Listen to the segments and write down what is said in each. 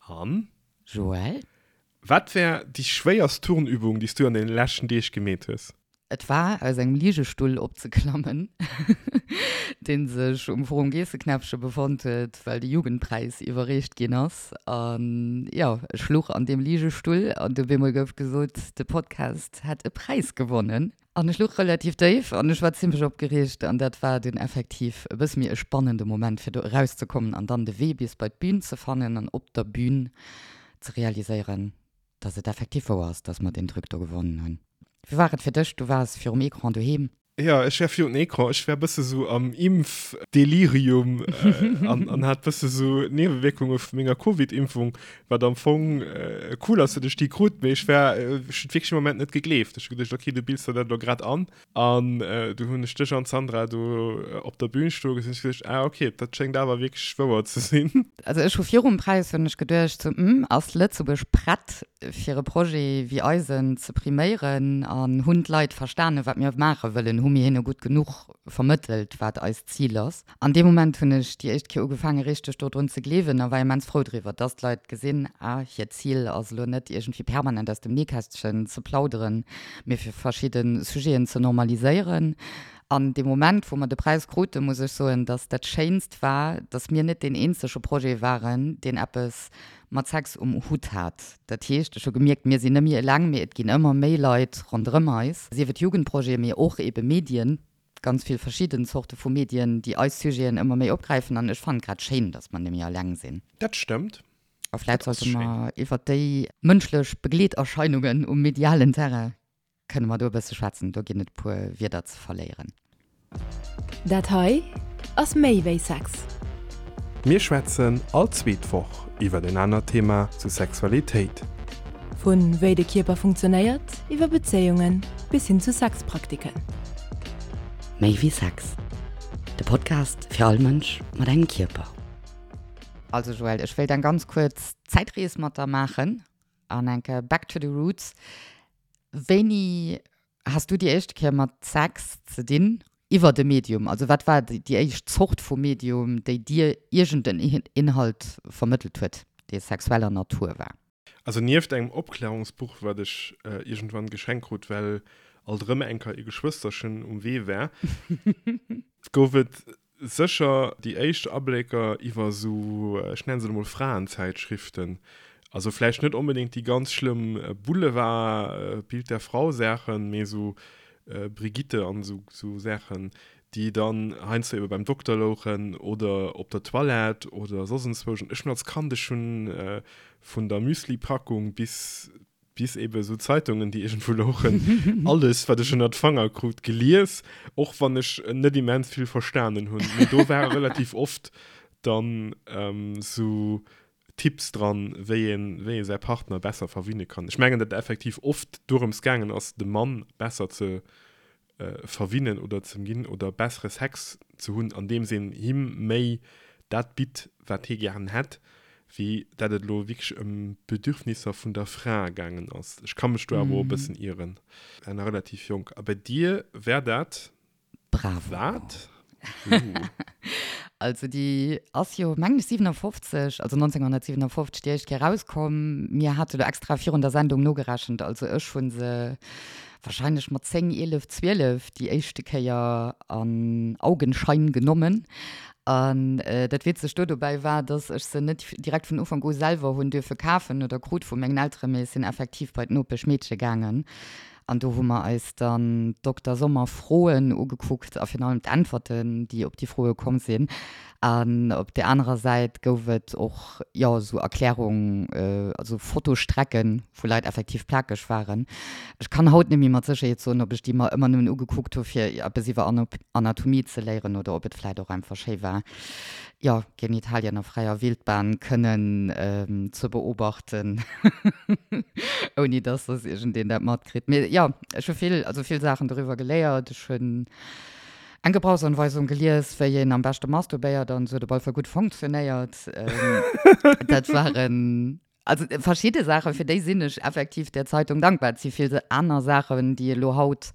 An? Joël? Wat war déi schwéierst Turnübung, déi s du an deene leschten Deeg gemeet hues? Et war, aus engem Ligestull opzeklammen, dee sech um Forum Geesseknäppche befonnt huet, well de Jugendpräis iwwerreecht ginn ass. An jo, ech luch an deem Ligestull an du op eemol gouf gesot, de Podcast hätt e Präis gewonnen. An ech luch relativ déif an ech war zimlech opgereegt an dat war dunn effektiv e bësse méi e spannende Moment, fir do erauszekommen an dann de Wee bis bei d'Bün ze fannen an op der Bün ze realiséieren, dass et effektiv wouer ass, dass mer deen Truc do gewonnen hunn. Wéi war et fir dech? Du waars virum Ecran doheem. Jo, ech war virun Ecran. Ech war bësse sou am Impfdelirium an an hat bësse sou Niewewierkunge vu menger Covid-Impfung, wat am Fong cool ass, datt ech déi krut, mee ech war, ech hunn et wierklech am Moment net gegleeft. Ech hu geduecht, okay, du bills der dat elo grad an. An du hunn ech dech an d'Sandra do op der Bühn stoe gesinn. Ech hu geduecht, ah okay, dat schéngt awer wierklech wouer ze sinn. Also ech hu virum Präis hunn ech geduecht, sou, hm, ass Lëtzebuerg prett fir e Projet wéi eisen ze priméieren an hunn d'Leit verstanen, wat mir maache wëllen? Hu mir hinne gutt genuch vermëttelt, wat eist Zil ass? An deem Moment hunn ech déi éischt Kéier ugefaange richteg dodrun ze gleewen a war immens frou driwwer, dass d'Leit gesinn, ah, hiert Zil ass elo net iergendwéi permanent aus dem Nähkästchen ze plauderen, mee fir verschidde Sujeten ze normaliséieren. An dee Moment, wou mer de Präis kruten, muss ech soen, dass dat Schéinst war, dass mir net deen eenzege Projet waren, deen eppes mat Sex um Hutt hat. Dat heescht, ech hu gemierkt, mir sinn net méi eleng, mee et ginn ëmmer méi Leit ronderëm eis, sief et Jugendprojete, mee och eebe Medien, ganz vill verschidden Zorte vu Medien, déi eis Sujeten ëmmer méi opgräifen. An ech fannen et grad schéin, dass mer net méi eleng sinn. Dat stëmmt. A vläit sollte mer iwwert déi mënschlech Begleeterscheinungen um medialen Terrain kënne mer do e bësse schwätzen. Do ginn et e puer Wierder ze verléieren. Dat hei ass méi wéi Sex. Mir schwätzen all zweet Woch iwwert en anert Thema zu Sexualitéit. Vu wéi de Kierper funktionéiert, iwwer Bezéiungen bis hin zu Sexpraktiken. Méi wéi Sex, de Podcast fir all Mënsch mat engem Kierper. Also Joël, ech wéilt eng ganz kuerz Zäitrees mat der maachen an enke back to the roots. Wéini has du déi éischte Kéier mat Sex ze dinn iwwert e Medium? Also wat war déi éischt Zort vu Medium, déi dir iergend en Inhalt vermëttelt huet, dee sexueller Natur war? Also nieft engem Opklärungsbuch, wat ech iergendwann geschenkt krut, well alt erëm enker ee Geschwësterchen um Wee war, gouf et Sécher déi éischt Ablécker iwwer esou, ech nennen se elo mol Fraenzäitschriften, also vläicht net onbedéngt déi ganz schlëmm Boulevard, Bild der Frau Saachen, mee esou Brigitte an esou Saachen, déi dann heiansdo ebe beim Dokter louchen oder op der Toilette oder soss enzwousch. An ech hunn als Kand, ech hunn vun der Müslipackung bis bis eben esou Zeitungen, déi iergendwou louchen, alles, wat ech ënnert d'Fanger krut, gelies, och wann ech net immens vill verstanen hunn. Mee do ware relativ oft dann esou Tipps dran, wéi een, wéi ee säi Partner besser verwinne kann. Ech mengen, datt et effektiv oft dorëms gaangen ass, de Mann besser ze verwinnen oder ze ginn oder bessere Sex ze hunn, andeems een him méi dat bitt, wat hie gären hätt, wéi dat et elo wierklech ëm d'Bedürfnisser vun der Fra gaangen ass. Ech ka mech do awer och e bëssen ieren. War nach relativ jonk. A bei dir war dat Bravo. wat? Also déi ass jo, mengen ech, 57, also 1957 déi éischt Kéier erauskomm. Mir hate lo extra virun der Sendung nogerechent, also ech hu se wahrscheinlech mat 10, 11, 12 déi éischte Kéier an Augenschein genommen. An dat Witzegt do dobäi war, dass ech se net direkt vun Ufank u selwer hunn duerfe kafen oder krut vu mengen Elteren, mee ech sinn effektiv bei d'Nopeschmeedche gaangen An do hu mer eis dann d'Dokter Sommer Froen ugekuckt a virun allem d'Äntwerten, déi op déi Froe komm sinn. An op där anerer Säit gouf et och, jo, esou Erklärung, also Fotostrecken, wou Leit effektiv plakeg waren. Ech kann haut net méi mat Sécherheet soen, ob ech déi mer ëmmer nëmmen ugekuckt hu fir eppes iwwer Anatomie ze léieren oder ob et vläit och einfach schéi war, jo, Genitalien a fräier Wildbahn kënnen ze beobachten, ouni dass soss iergendeen dat matkritt. Mee jo, ech hu vill, also vill Saachen doriwwer geléiert. Ech hunn eng Gebrauchsanweisung gelies, wéi een am beschte masturbéiert an esou, huet op alle Fall gutt fonctionnéiert. Dat waren also verschidde Saachen, fir déi sinn ech effektiv där Zeitung dankbar. Et si vill aner Saachen, déi elo haut.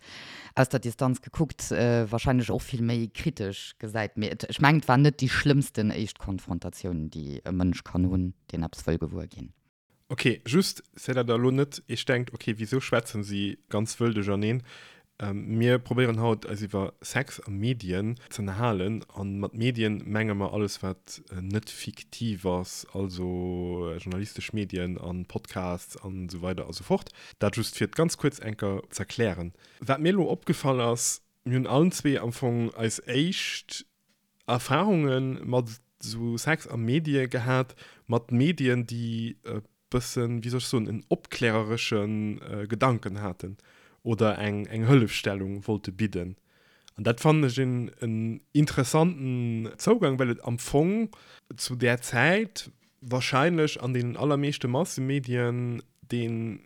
aus der Distanz gekuckt wahrscheinlech och vill méi kritesch gesäit. Mee et, ech mengen, et war net déi schlëmmsten éischt Konfrontatioun, déi e Mënsch kann hunn, deen eppes wëll gewuer ginn. Ok, just fir dat der elo net iech denkt, ok, wisou schwätzen si ganz wëll duercherneen? Mir probéieren haut eis iwwer Sex a Medien ze ënnerhalen. A mat Medien menge mer alles wat net fiktiv ass, also journalistesch Medien a Podcasts an esou weider a sou fort. Dat just fir et ganz kuerz enker z'erklären. Wat mir elo opgefall ass, mir hunn allen zwee am Fong eis éischt Erfahrunge mat esou Sex a Medie gehat, mat Medien, déi e bëssen, wéi soll ech soen, en opkläreresche Gedanken haten oder eng eng Hëllefstellung wollte bidden. An dat fannen ech en en interessanten Zougang, well et am Fong zu där Zäit wahrscheinlech an deenen allermeeschte Massemedien deen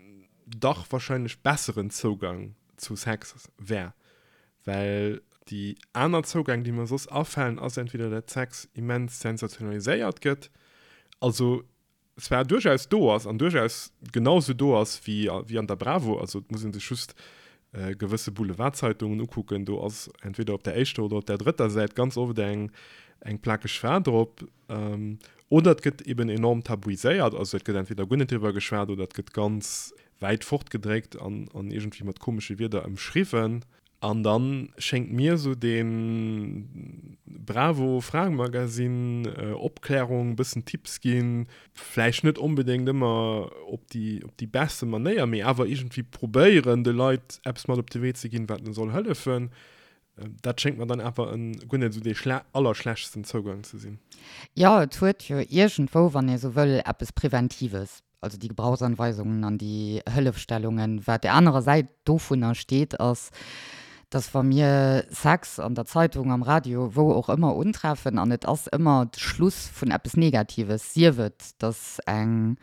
dach wahrscheinlech besseren Zougang zu Sex wär. Well déi aner Zougäng, déi mer soss afalen, ass entweder dat Sex immens sensationaliséiert gëtt, also zwar duerchaus do ass an duerchaus genau sou do ass wéi wéi an der Bravo, also et muss ee sech just gewësse Boulevardzeitungen ukucken, do ass entweder op der éischter oder op der drëtter Säit ganz oft eng eng plakeg Fra drop, oder et gëtt eben enorm tabuiséiert, also et gëtt entweder guer net driwwer geschwat oder et gëtt ganz wäit fortgedréckt an an iergendwéi mat komesche Wierder ëmschriwwen. An dann schéngt mir esou dee Bravo Fraemagazin, Opklärung, bëssen Tipps ginn, vläicht net onbedéngt ëmmer op déi op déi beste Manéier, mee awer iergendwéi probéieren de Leit eppes mat op de Wee ze ginn, wat en soll hëllefen, dat schéngt mer dann awer en guer net esou dee allerschlechtsten Zougang ze sinn. Jo, et huet jo iergendwou, wann ee sou wëll, eppes Preventives. also déi Gebrauchsanweisungen an déi Hëllefstellungen. Wat der anerer Säit dovunner steet, ass, dass wa mir Sex an der Zeitung, am Radio, wou och ëmmer untreffen, an et ass ëmmer de Schluss vun eppes Negatives, sief et, dass eng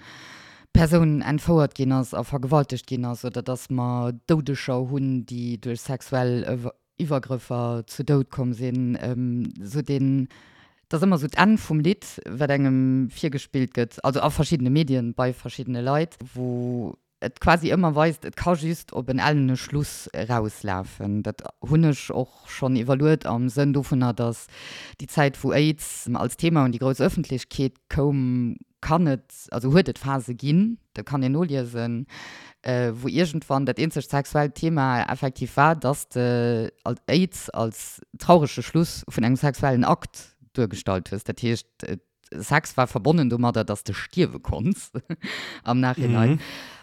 Persoun entfouert ginn ass a vergewaltegt ginn ass oder dass mer Doudeger hunn, déi duerch sexuell Iwwergrëffer zu Doud komm sinn, esou deen, et ass ëmmer esou d'Enn vum Lidd, wat engem virgespillt gëtt, also a verschiddene Medien, bei verschiddene Leit, wou et quasi ëmmer weist, et ka just op en ellene Schluss erauslafen. Dat hunn ech och schonn iwwerluet am Sënn dovunner, datt déi Zäit, wou Aids als Thema un déi grouss Ëffentlechkeet koum, kann et, also huet et Phase ginn, dat kann een noliesen, wou iergendwann dat eenzegt sexuellt Thema effektiv war, dass de Aids als traurege Schluss vun engem sexuellen Akt duergestallt hues. Dat heescht, Sex war verbonnen domadder, dass de stierwe konns am Nachhinein.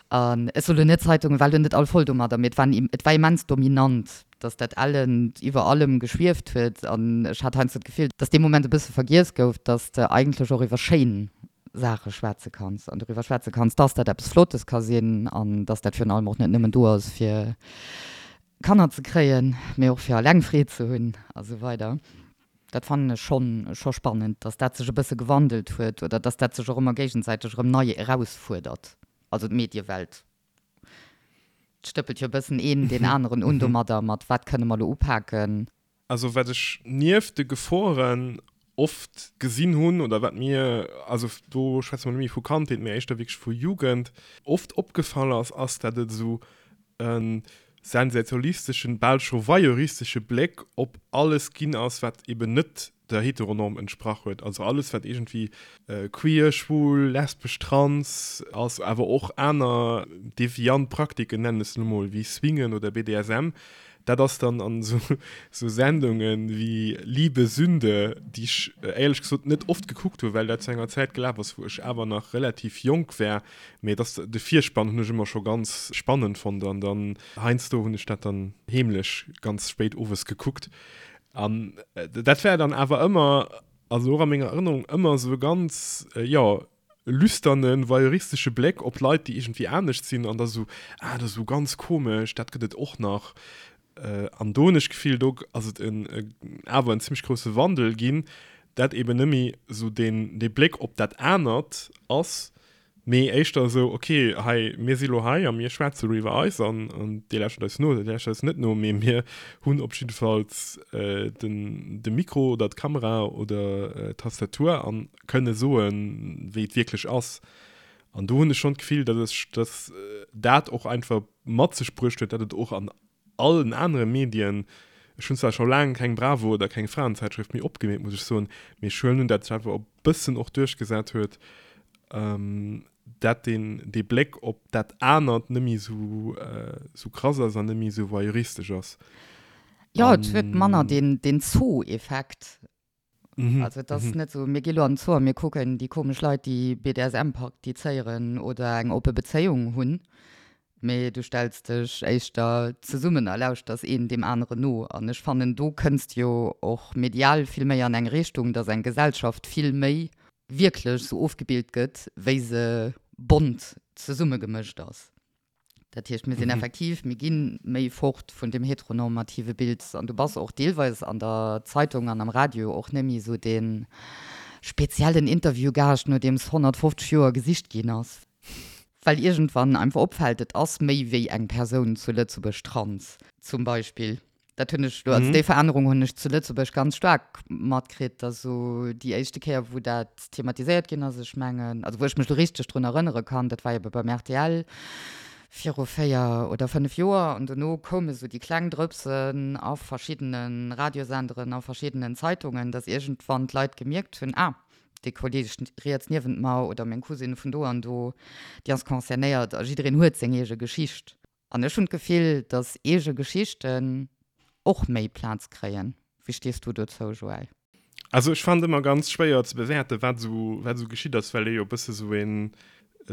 An ech soen elo net, d'Zeitungen waren elo net all voll domadder, mee et war, et war immens dominant, dass dat Ellent iwwer allem geschwieft huet. An ech hat heiansdo d'Gefill, dass dee Moment e bësse vergiess gouf, dass de eigentlech och iwwer schéin Saache schwätze kanns an doriwwer schwätze kanns, dass dat eppes Flottes ka sinn an dass dat virun allem och net nëmmen do ass, fir Kanner ze kréien, mee och fir eleng Freed ze hunn a sou weider. Dat fannen ech schonn scho spannend, dass dat sech e bësse gewandelt huet oder dass dat sech och ëmmer géigesäiteg erëm nei erausfuerdert, also d'Mediewelt stëppelt jo e bëssen een deen aneren un domadder, mat wat kënne mer elo upaken. Also wat ech nieft de Geforen oft gesinn hunn oder wat mir, also do schwätze mer net méi vu Kandheet, mee éischter wierklech vu Jugend, oft opgefall ass, ass dat et esou e sensationalisteschen, bal scho voyeuristesche Bléck op alles ginn ass, wat eben net der Heteronorm entsprach huet. Also alles, wat iergendwéi queer, schwul, lesbesch, trans ass, awer och aner deviant Praktiken, nennen ech se elo mol, wéi Swingen oder BDSM, dat ass dann an esou Sendungen wéi Liebe Sünde, déi ech éierlech gesot net oft gekuckt hunn, well dat zu enger Zäit gelaf ass, wou ech awer nach relativ jonk war, mee et ass, de Virspann hunn ech ëmmer scho ganz spannend fonnt an dann heiansdo hunn ech dat dann heemlech ganz spéit owes gekuckt an dat war dann awer ëmmer, also och a menger Erënnerung, ëmmer esou e ganz, jo, lüsternen, voyeuristesche Bléck op Leit, déi iergendwéi anescht sinn an da sou, ah, dat ass esou ganz komesch, dat gëtt et och nach. An do hunn ech d'Gefill, do ass et en awer en zimmlech grousse Wandel ginn, dat eben net méi esou deen dee Bléck op dat anert ass, mee éischter esou, ok, hei, mir si lo hei a mir schwätze lo iwwer eis an dir lauschtert eis no oder dir lauschtert eis net no, mee mir hunn op jiddefalls den de Mikro oder d'Kamera oder d'Tastatur an kënne soen, wéi et wierklech ass. An do hunn ech schonn d'Gefill, datt ech, datt dat och einfach mat sech bruecht huet, datt et och an. allen anere Medien, ech hunn zwar scho laang keng Bravo oder keng Fraenzeitschrëft méi opgemeet, muss ech soen, mee ech huelen un, dat sech awer e bëssen och duerchgesat huet, dat deen dee Bléck op dat anert net méi esou esou krass ass an net méi esou voyeuristesch ass. Jo, et huet manner deen deen Zoo-Effekt. Also et ass net esou, mir gi lo an den Zoo a mir kucken déi komesch Leit, déi BDSM praktizéieren oder eng oppe Bezéiung hunn, mee du stells dech éischter zesummen a lauschters een deem aneren no. An ech fannen, do kënns de jo och medial vill méi an eng Richtung, dass eng Gesellschaft vill méi wierklech sou ofgebilt gëtt, wéi se bont zesummegemëscht ass. Dat heescht, mir sinn effektiv, mir gi méi fort vun deem heteronormative Bild an du bass och deelweis an der Zeitung an am Radio och net méi esou dee speziellen Interviewgaascht, nodeems 150 Joer gesicht ginn ass, well iergendwann einfach opfält, et ass méi wéi eng Persoun zu Lëtzebuerg trans zum Beispill. Dat hunn ech, also déi Verännerung hunn ech zu Lëtzebuerg ganz staark matkritt, dass esou déi éischte Kéier, wou dat thematiséiert ginn ass, ech mengen, also wou ech mech elo richteg drun erënnere kann, dat war ebe beim rtl viru 4 oder 5 Joer an dono koume sou déi kleng Drëpsen a verschiddene Radiosenderen, a verschiddenen Zeitungen, dass iergendwann d'Leit gemierkt hunn, ah, dee Kolleeg riets niewent mer oder meng Cousine vun do an do, déi ass concernéiert a jiddereen huet seng eege Geschicht. An ech hunn d'Gefill, datt eege Geschichten och méi Plaz kréien. Wéi stees du dozou, Joël? Also ech fannen et ëmmer ganz schwéier ze bewäerten, wat esou, wat esou geschitt ass, well ee jo e bësse sou een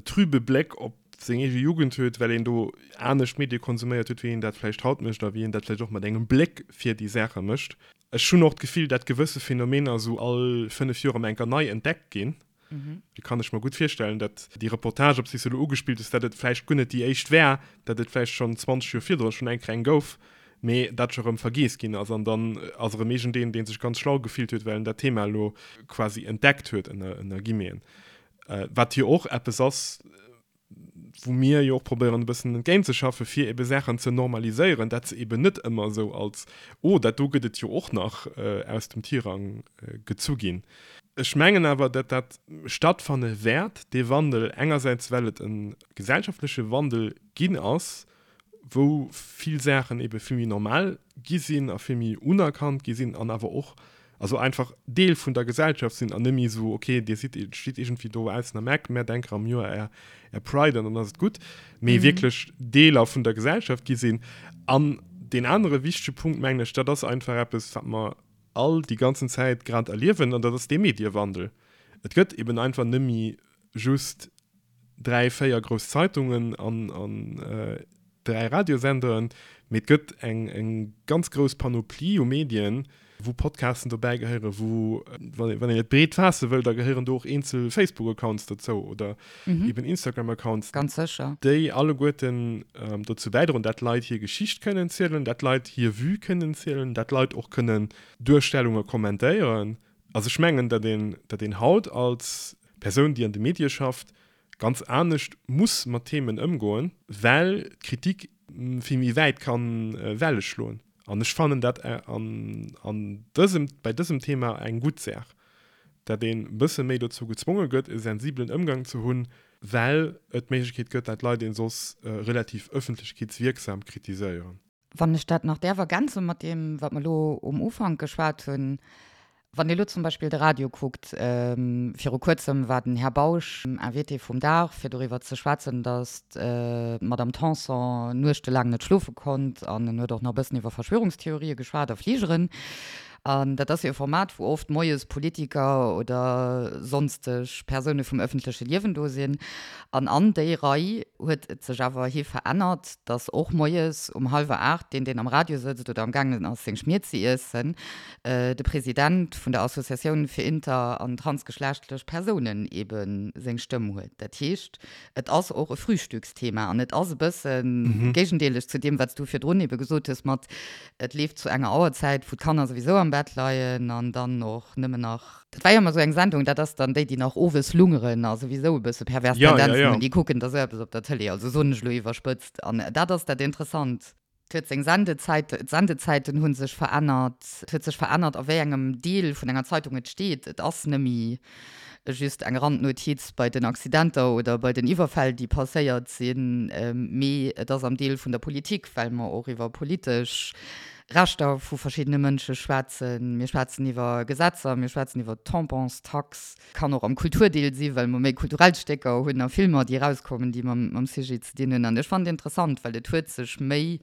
trübe Bléck op seng eege Jugend huet, well een do anescht Medie konsuméiert huet, wéi een dat vläicht haut mécht a wéi een dat vläicht och mat engem Bléck fir déi Saache mécht. Ech hunn och d'Gefill, dat gewësse Phänomener esou all 5 Joer emol enker nei entdeckt ginn. Do kann ech mer gutt virstellen, datt déi Reportage, op déi s de elo ugespillt hues, datt et vläicht guer net déi éischt war, datt et vläicht schonn 20 Joer virdrun schonn eng Kéier eng gouf, mee dat scho erëm vergiess ginn ass. An dann ass erëm iergendeen, dee sech ganz schlau gefillt huet, well en dat Thema elo quasi entdeckt huet, ënner Guillemeten. Wat jo och eppes ass, wou mir jo och probéieren e bëssen entgéintzeschaffen, fir ebe Saachen ze normaliséieren, dat se eben net ëmmer esou als, oh, dat do gëtt et jo och nach, aus dem Tirang gezu ginn. Ech mengen awer, dat dat stattfanne wäert, dee Wandel, engersäits well et e gesellschaftleche Wandel ginn ass, wou vill Saachen ebe vill méi normal gi sinn a vill méi unerkannt gi sinn an awer och also einfach Deel vun der Gesellschaft sinn an net méi esou, okay, Dir sidd, steet iergendwéi do aussen am Eck, mä denker am Joer Är, Är Pride an dann ass et gutt, mee wierklech Deeler vun der Gesellschaft gi sinn. An deen anere wichtege Punkt, mengen ech, dat ass einfach eppes, wat mer all déi ganzen Zäit grad erliewen, an dat ass dee Mediewandel. Et gëtt eben einfach net méi just 3, 4 grouss Zeitungen an 3 Radiosenderen, mee et gëtt eng ganz grouss Panoplie u Medien, wou Podcasten dobäi gehéieren, wou, wann een et breet faasse wëll, da gehéieren do och eenzel Facebook-Accounts dozou oder eben Instagram-Accounts. Ganz sécher. Déi alleguerten dozou bäidroen, dat Leit hir Geschicht kënnen zielen, dat Leit hir Vue kënnen zielen, dat Leit och kënnen Duerstellunge kommentéieren. Also ech mengen, datt een, datt een haut als Persoun, déi an de Medie schafft, ganz anescht muss mat Themen ëmgoen, well d'Kritik vill méi wäit ka Welle schloen. An ech fannen dat an, an dësem, bei dësem Thema eng gutt Saach, datt een e bësse méi dozou gezwonge gëtt, e sensibelen Ëmgang ze hunn, well et d'Méiglechkeet gëtt, dat Leit een soss relativ ëffentlechkeetswierksam kritiséieren. Wann ech dat nach däerf ergänze mat deem, wat mer elo um Ufank geschwat hunn, Wann Dir elo zum Beispill de Radio kuckt, viru Kuerzem war den Här Bausch Invité vum Dag, fir doriwwer ze schwätzen, datt d'Madame Tanson nuechtelaang net schlofe konnt an en huet och nach e bëssen iwwer Verschwörungstheorië geschwat a Fligeren. An dat ass jo e Format, wou oft moies Politiker oder sonsteg Persoune vum ëffentleche Liewen do sinn. An an déi Rei huet et sech awer hi verännert, datt och moies um hallwer 8 deen, deen am Radio sëtzt oder amgaangen ass seng Schmier ze iessen, de President vun der Associatioun fir inter an transgeschlechtlech Persounen ebe seng Stëmm huet. Dat heescht, et ass och e Frühstücksthema an et ass e bësse géigendeeleg zu deem, wat s du virdrun ebe gesot hues mat, Et leeft zu enger Auerzäit, wou d'Kanner souwisou am Bett leien an dann och nëmmen nach, dat war jo ëmmer esou eng Sendung, dat ass dann déi, déi nach owes lungeren a souwisou e bësse pervers Tendenzen hunn, déi kucken da sou eppes op der Tëlee, also soen ech elo iwwerspëtzt. An dat ass dat Interessant. Et huet seng Sendezäit, d'Sendezäiten hu sech verännert, et huet sech verännert, a wéi engem Deel vun enger Zeitung et steet. Et ass nëmmi. just eng Randnotiz bei den Accidenter oder bei den Iwwerfäll, déi passéiert sinn, mee et ass am Deel vun der Politik, well mer och iwwer politesch Rechter vu verschiddene Mënsche schwätzen. Mir schwätzen iwwer Gesetzer, mir schwätzen iwwer d'Tamponstax. Kann och am Kulturdeel si well mer méi kulturell Stécker hunn a Filmer, déi erauskommen, déi mam Sujet ze dinn hunn. An ech fannen et interessant, well et huet sech méi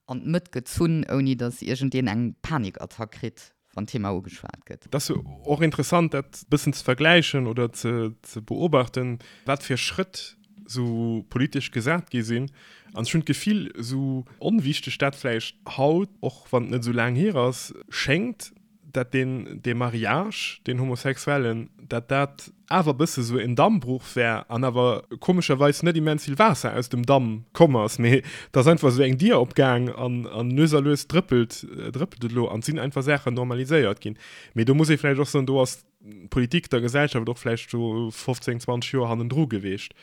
an d'Mëtt gezunn, ouni datt iergendeen eng Panikattack kritt, wann d'Thema ugeschwat gëtt. Et ass jo och interessant, dat e bëssen ze vergläichen oder ze beobachten, wat fir Schrëtt esou politesch gesat gi sinn. An ech hunn d'Gefill, esou onwichteg dat vläicht haut, och wann et net esou laang hier ass, schéngt, dat deen, dee Mariage, deen homosexuellen, dat dat awer e bësse sou en Dammbruch wär an awer komescherweis net immens vill Waasser aus dem Damm komm ass, mee et ass einfach sou eng Dier opgaang an, an lues a lues drëppelt, drëppelt et elo an et sinn einfach Saachen normaliséiert ginn. Mee do muss ee vläicht och soen, do ass d'Politik der Gesellschaft och vläicht do 15, 20 Joer hannendru geweecht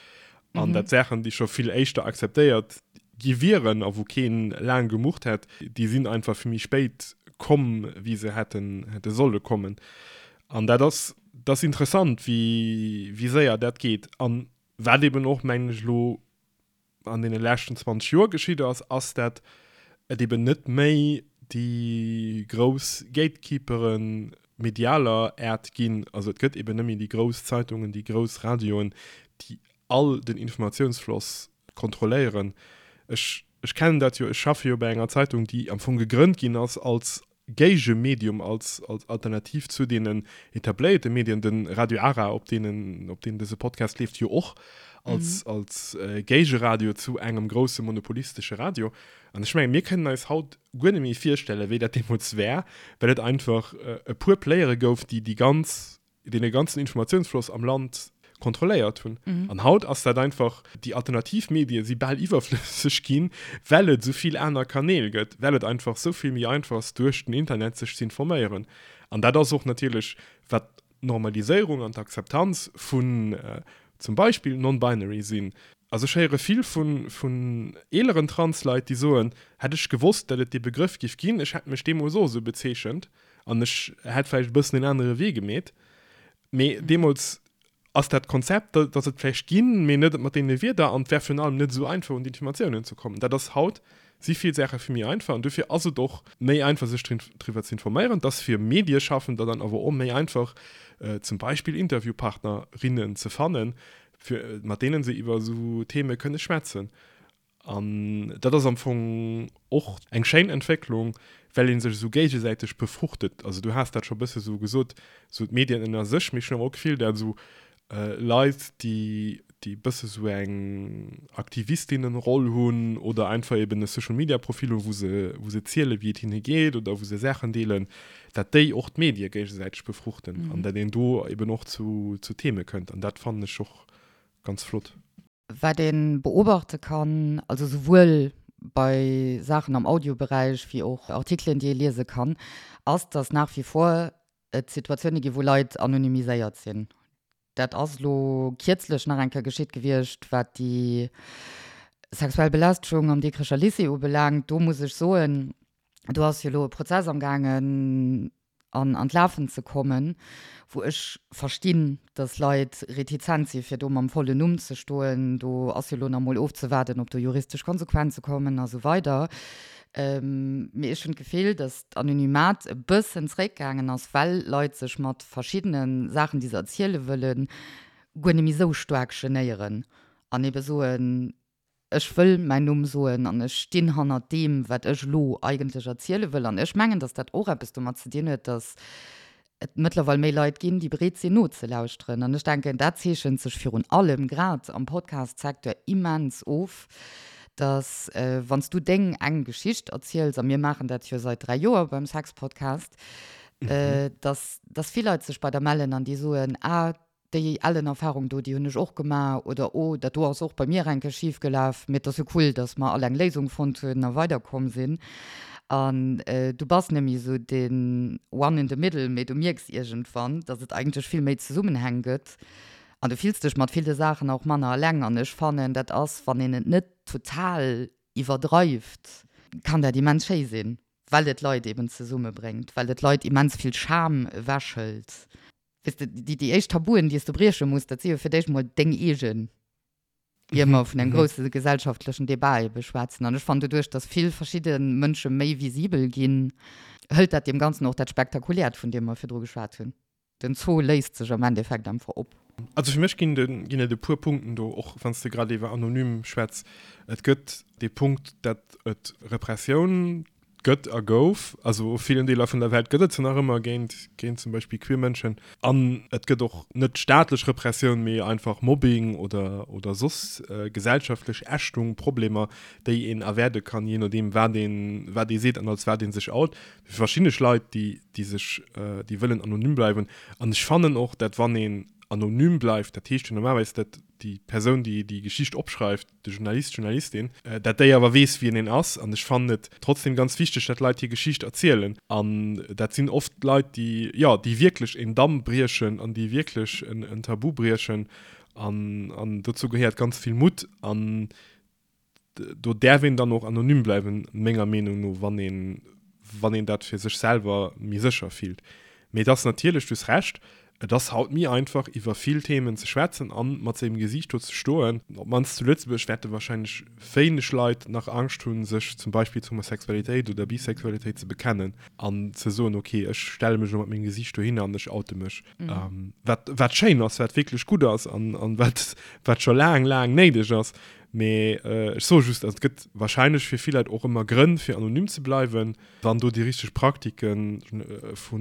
an dat Saachen, déi scho vill éischter akzeptéiert gi wieren a wou keen laang gemurrt hätt, déi sinn einfach vill méi spéit komm, wéi se hätten, hätte solle kommen. An dat ass, dat ass interessant, wéi, wéi séier dat geet. An wat eben och, mengen ech, elo an deene leschten 20 Joer geschitt ass, ass, dat et eben net méi déi grouss Gatekeepere medialer Äert ginn. Also et gëtt eben net méi déi grouss Zeitungen, déi grouss Radioen, déi all den Informatiounsfloss kontrolléieren. Ech, ech kennen dat jo, ech schaffe jo bei enger Zeitung, déi am Fong gegrënnt ginn ass als Géigemedium, als, als Alternativ zu deenen etabléierte Medien, de Radio Ara, op deenen, op deem dëse Podcast leeft, jo och als, als Géigeradio zu engem grousse monopolistesche Radio. An ech mengen, mir kënnen eis haut guer net méi virstellen, wéi dat deemools war, well et einfach e puer Playere gouf, déi déi ganz deen e ganzen Informatiounsfloss am Land kontrolléiert hunn. Mhm. An haut ass dat einfach, déi alternativ Medie si bal iwwerflësseg ginn, well et esou vill aner Kanäl gëtt, well et einfach esou vill méi einfach ass, duerch den Internet sech ze informéieren. An dat ass och natierlech, wat d'Normaliséierung an d'Akzeptanz vun zum Beispill non-binary sinn. Also ech héiere vill vun, vun eeleren Transleit, déi soen, hätt ech gewosst, datt et dee Begrëff giff ginn, ech hätt mech deemools och esou bezeechent. An ech hätt vläicht e bëssen en anere Wee gemeet. Mee deemools ass dat Konzept, datt et vläicht ginn, mee net mat deene Wierder an et wär virun allem net esou einfach un d'Informatiounen ze kommen. Dat ass haut, si vill Saache vill méi einfach an dofir ass et och méi einfach sech driwwer ze informéieren. Et ass fir Medieschaffender dann awer och méi einfach zum Beispill Interviewpartnerinnen ze fannen, fir mat deene se iwwer esou Theme kënne schwätzen. An dat ass am Fong och eng schéin Entwécklung, well ee sech esou géigesäiteg befruchtet. Also du has dat scho e bësse sou gesot, sou d'Medien ënner sech, mee ech hunn awer och d'Gefill, dat esou Leit, déi déi e bësse sou eng Aktivistinnenroll hunn oder einfach eben e Social-Media-Profil hunn, wou se wou se ziele wéi et hinne geet oder wou se Saachen deelen, dat déi och d'Medie géigesäiteg befruchten an dat een do eben och zu zu Theme kënnt. An dat fannen ech och ganz flott. Wat ee beobachte kann, also souwuel bei Saachen am Audioberäich wéi och Artikelen, déi ee liese kann, ass, dass nach wie vor et Situatioune gi wou Leit anonymiséiert sinn. Dat ass elo kierzlech nach eng Kéier geschitt gewiescht, wat déi sexuell Belästegung am Dikrecher Lycée ubelaangt. Do muss ech soen, do ass jo elo e Prozess amgaangen, an an d'Lafen ze kommen, wou ech verstinn, dass Leit retizent si fir do mam vollen Numm ze stoen. Do ass jo elo nach emol ofzewaarden, ob do juristesch Konsequenze kommen a sou weider. Mee ech hunn d'Gefill, dass d'Anonymat e bëssen zréckgaangen ass, well Leit sech mat verschiddene Saachen, déi se erziele wëllen, guer net méi esou staark genéieren an ebe soen, Ech wëll mäin Numm soen an ech stinn hannert deem, wat ech elo eigentlech erziele wëll. An ech mengen, datt dat och eppes domat ze dinn huet, datt et mëttlerweil méi Leit ginn, déi bereet sinn nozelauschteren. An ech denken, dat zeechent sech virun allem grad am Podcast-Secteur immens of, datt wann s du deng eng Geschicht erziels, a mir maachen dat jo seit 3 Joer beim Sex-Podcast, datt datt vill Leit sech bei der mellen an déi soen, ah, déi ellen Erfahrung do, déi hunn ech och gemaach oder oh, dat do ass och bei mir eng Kéier schif gelaf, mee et ass jo cool, dass mer all eng Léisung fonnt hunn a weiderkomm sinn. An du bass net méi esou den one in the middle, mee du mierks iergendwann, dass et eigentlech vill méi Zesummenhäng gëtt an du fills dech mat ville Saachen och manner eleng. An ech fannen, dat ass, wann een et net total iwwerdreift, kann dat immens schéi sinn, well et Leit eben zesummebréngt, well et Leit immens vill Scham ewechhëlt. Weess de, déi, déi éischt Tabuen, déi s de brieche muss, dat si jo fir d'éischt mol deng eegen, ier mer vun engem grousse gesellschaftlechen Debat ebe schwätzen. An ech fannen, doduerch, datt vill verschidde Mënsche méi visibel ginn, hëlt dat deem Ganzen och dat Spektakuläert, vun deem mer virdru geschwat hunn. Den Zoo léist sech am Endeffekt einfach op. Also fir mech ginn ginn et e puer Punkten do, och wann s de grad iwwer anonym schwätz. Et gëtt dee Punkt, datt et Repressioun gëtt a gouf, also u villen Deeler vun der Welt gëtt et se nach ëmmer géint géint zum Beispill queer Mënschen. An et gëtt och net staatlech Repressioun, mee einfach Mobbing oder oder soss gesellschaftlech Ächtung, Problemer, déi een erwäerde kann, jee nodeem wat een wat ee seet an als wat ee sech out. Verschiddene Leit, déi déi sech déi wëllen anonym bleiwen. An ech fannen och, dat wann een anonym bleift, dat heescht jo normalerweis, dat déi Persoun, déi déi Geschicht opschreift, de Journalist, d'Journalistin, dat déi awer weess, wien een ass. An ech fannen et trotzdem ganz wichteg, dat Leit hir Geschicht erzielen. An dat sinn oft Leit, déi, jo, déi wierklech en Damm briechen an déi wierklech en Tabu briechen. An, an dozou gehéiert ganz vill Mutt. An do däerf een dann och anonym bleiwen, menger Meenung no, wann een, wann een dat fir sech selwer méi sécher fillt. Mee et ass natierlech, du hues Recht, et ass haut méi einfach, iwwer vill Themen ze schwätzen a mat sengem Gesiicht do ze stoen. Op d'mannst zu Lëtzebuerg wäerte warscheinlech wéineg Leit nach Angscht hunn, sech zum Beispill zur Homosexualitéit oder Bisexualitéit ze bekennen an ze soen, okay, ech stelle mech elo mat mengem Gesiicht dohinner an ech oute mech. Wat, wat schéin ass, wat wierklech gutt ass an, an wat, wat scho laang, laang néideg ass. Mee ech soe just, also et gëtt wahrscheinlech fir vill Leit och ëmmer Grënn, fir anonym ze bleiwen. Wann do déi richteg Praktike vu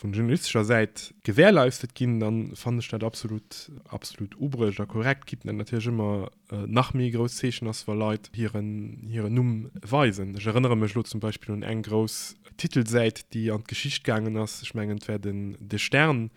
journalistescher Säit gewährleistet ginn, da fannen ech dat absolut, absolut ubruecht a korrekt, quitte dat natierlech ëmmer nach méi e grousst Zeechen ass, wa Leit hiren, hiren Numm weisen. Ech erënnere mech elo zum Beispill un eng grouss Titelsäit, déi an d'Geschicht gaangen ass, ech mengen et war den De Stern,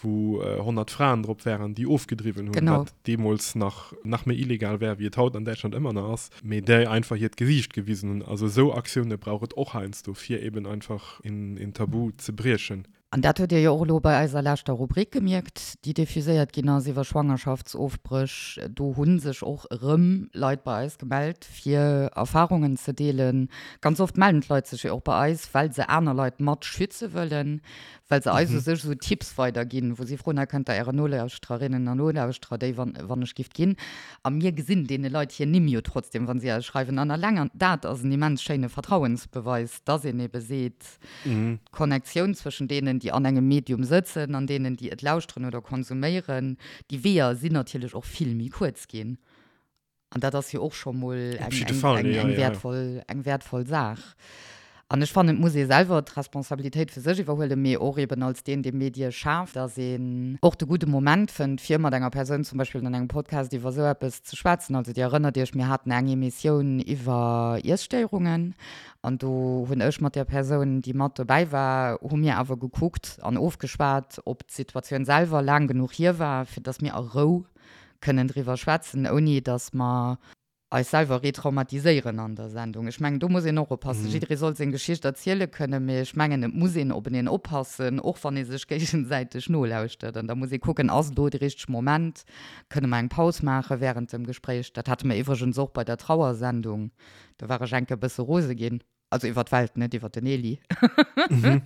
wou 100 Fraen drop waren, déi ofgedriwwen hunn, genau. wat deemools nach, nach méi illegal war, wéi et haut an Däitschland ëmmer nach ass, mee déi einfach hiert Gesiicht gewisen hunn. Also esou Aktioune brauch et och heiansdo, fir eben einfach een Tabu ze briechen. An dat hutt Dir jo och elo bei eiser leschter Rubrik gemierkt, déi diffuséiert ginn ass iwwer Schwangerschaftsofbréch. Do hu sech och erëm Leit bei eis gemellt, fir Erfarungen ze deelen. Ganz oft mellen d'Leit sech jo och bei eis, well se aner Leit mat schütze wëllen, well se eis u sech esou Tipps weiderginn, wou si froen, Hei kënnt Der Ären Nolauschtererinnen an Nolauschterer déi, wann, wann ech gift ginn. A mir gesinn deene Leit hir Nimm jo trotzdem, wa si eis schreiwen. An alleng an dat ass en immens schéine Vertrauensbeweis, dass een ebe seet, d'Connectioun zwëschen deenen, déi an engem Medium sëtzen, an deenen, déi et lauschteren oder konsuméieren, déi Weeër sinn natierlech och vill méi kuerz ginn. An dat ass jo och scho mol eng, eng, eng, eng wäertvoll, eng wäertvoll Saach. An ech fannen, et muss ee selwer d'Responsabilitéit fir sech iwwerhuelen, mee och eben als deen, dee Medie schaaft, dass een och de gudde Moment fënnt, fir mat enger Persoun zum Beispill an engem Podcast iwwer esou eppes ze schwätzen. Also Dir erënnert Iech, mir haten eng Emissioun iwwer Iesstéierungen an do hunn ech mat där Persoun, déi mat dobäi war, hu mir awer gekuckt an ofgeschwat, ob d'Situatioun selwer laang genuch hier war, fir dass mir a Rou kënnen driwwer schwätzen, ouni datt mer eis selwer retraumatiséieren an der Sendung. Ech mengen, do muss een och oppassen. Jidderee soll seng Geschicht erziele kënnen, mee ech mengen, et muss een openeen oppassen, och wann ee sech géigesäiteg nolauschtert. An da muss ee kucken, Ass elo de richtege Moment? Kënne mer eng Paus maache wärend dem Gespréich? Dat hate mer iwwregens och bei der Trauersendung. Do war ech enke bësse rose ginn. Also iwwer d'Welt, net iwwer den Eli. Mhm.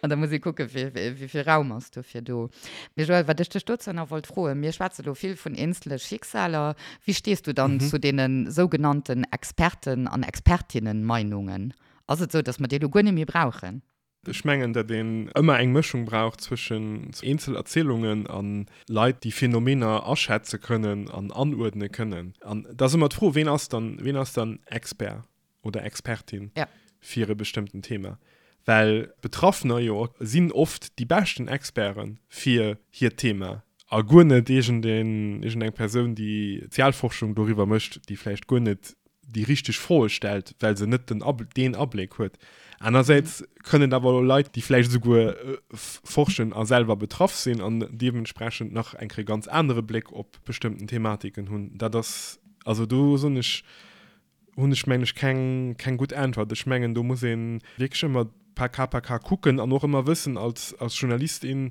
An da muss ee kucken, wéi vill Raum ass dofir do. Mee Joël, wat ech dech dozou nach wollt froen, mir schwätze lo vill vun eenzele Schicksaler. Wéi stees du dann mhm. zu deene sougenannten Experten an Expertinnen-Meinungen? Ass et sou, datt mer déi lo guer net méi brauchen? Ech mengen, datt een ëmmer eng Mëschung brauch zwëschen eenzel Erzielungen a Leit, déi Phänomener aschätze kënnen an anuerdne kënnen. An da ass ëmmer d'Fro, ween ass dann, ween ass dann Expert oder Expertin fir e bestëmmten Thema? Well Betraffener jo sinn oft déi beschten Experte fir hiert Thema a guer net iergendeen, iergendeng Persoun, déi Sozialforschung doriwwer mécht, déi vläicht guer net déi richteg Froe stellt, well se net den Ab deen Abléck huet. Anersäits kënnen et awer och Leit, déi vläicht esouguer forschen a selwer betraff sinn an deementsprechend nach eng Kéier ganz anere Bléck op bestëmmten Thematiken hunn. Dat ass, also do soen ech, hunn ech mengen ech keng, keng gutt Äntwert. Ech mengen do muss ee wierklech ëmmer par cas par cas kucken an och ëmmer wëssen als, als Journalist, in.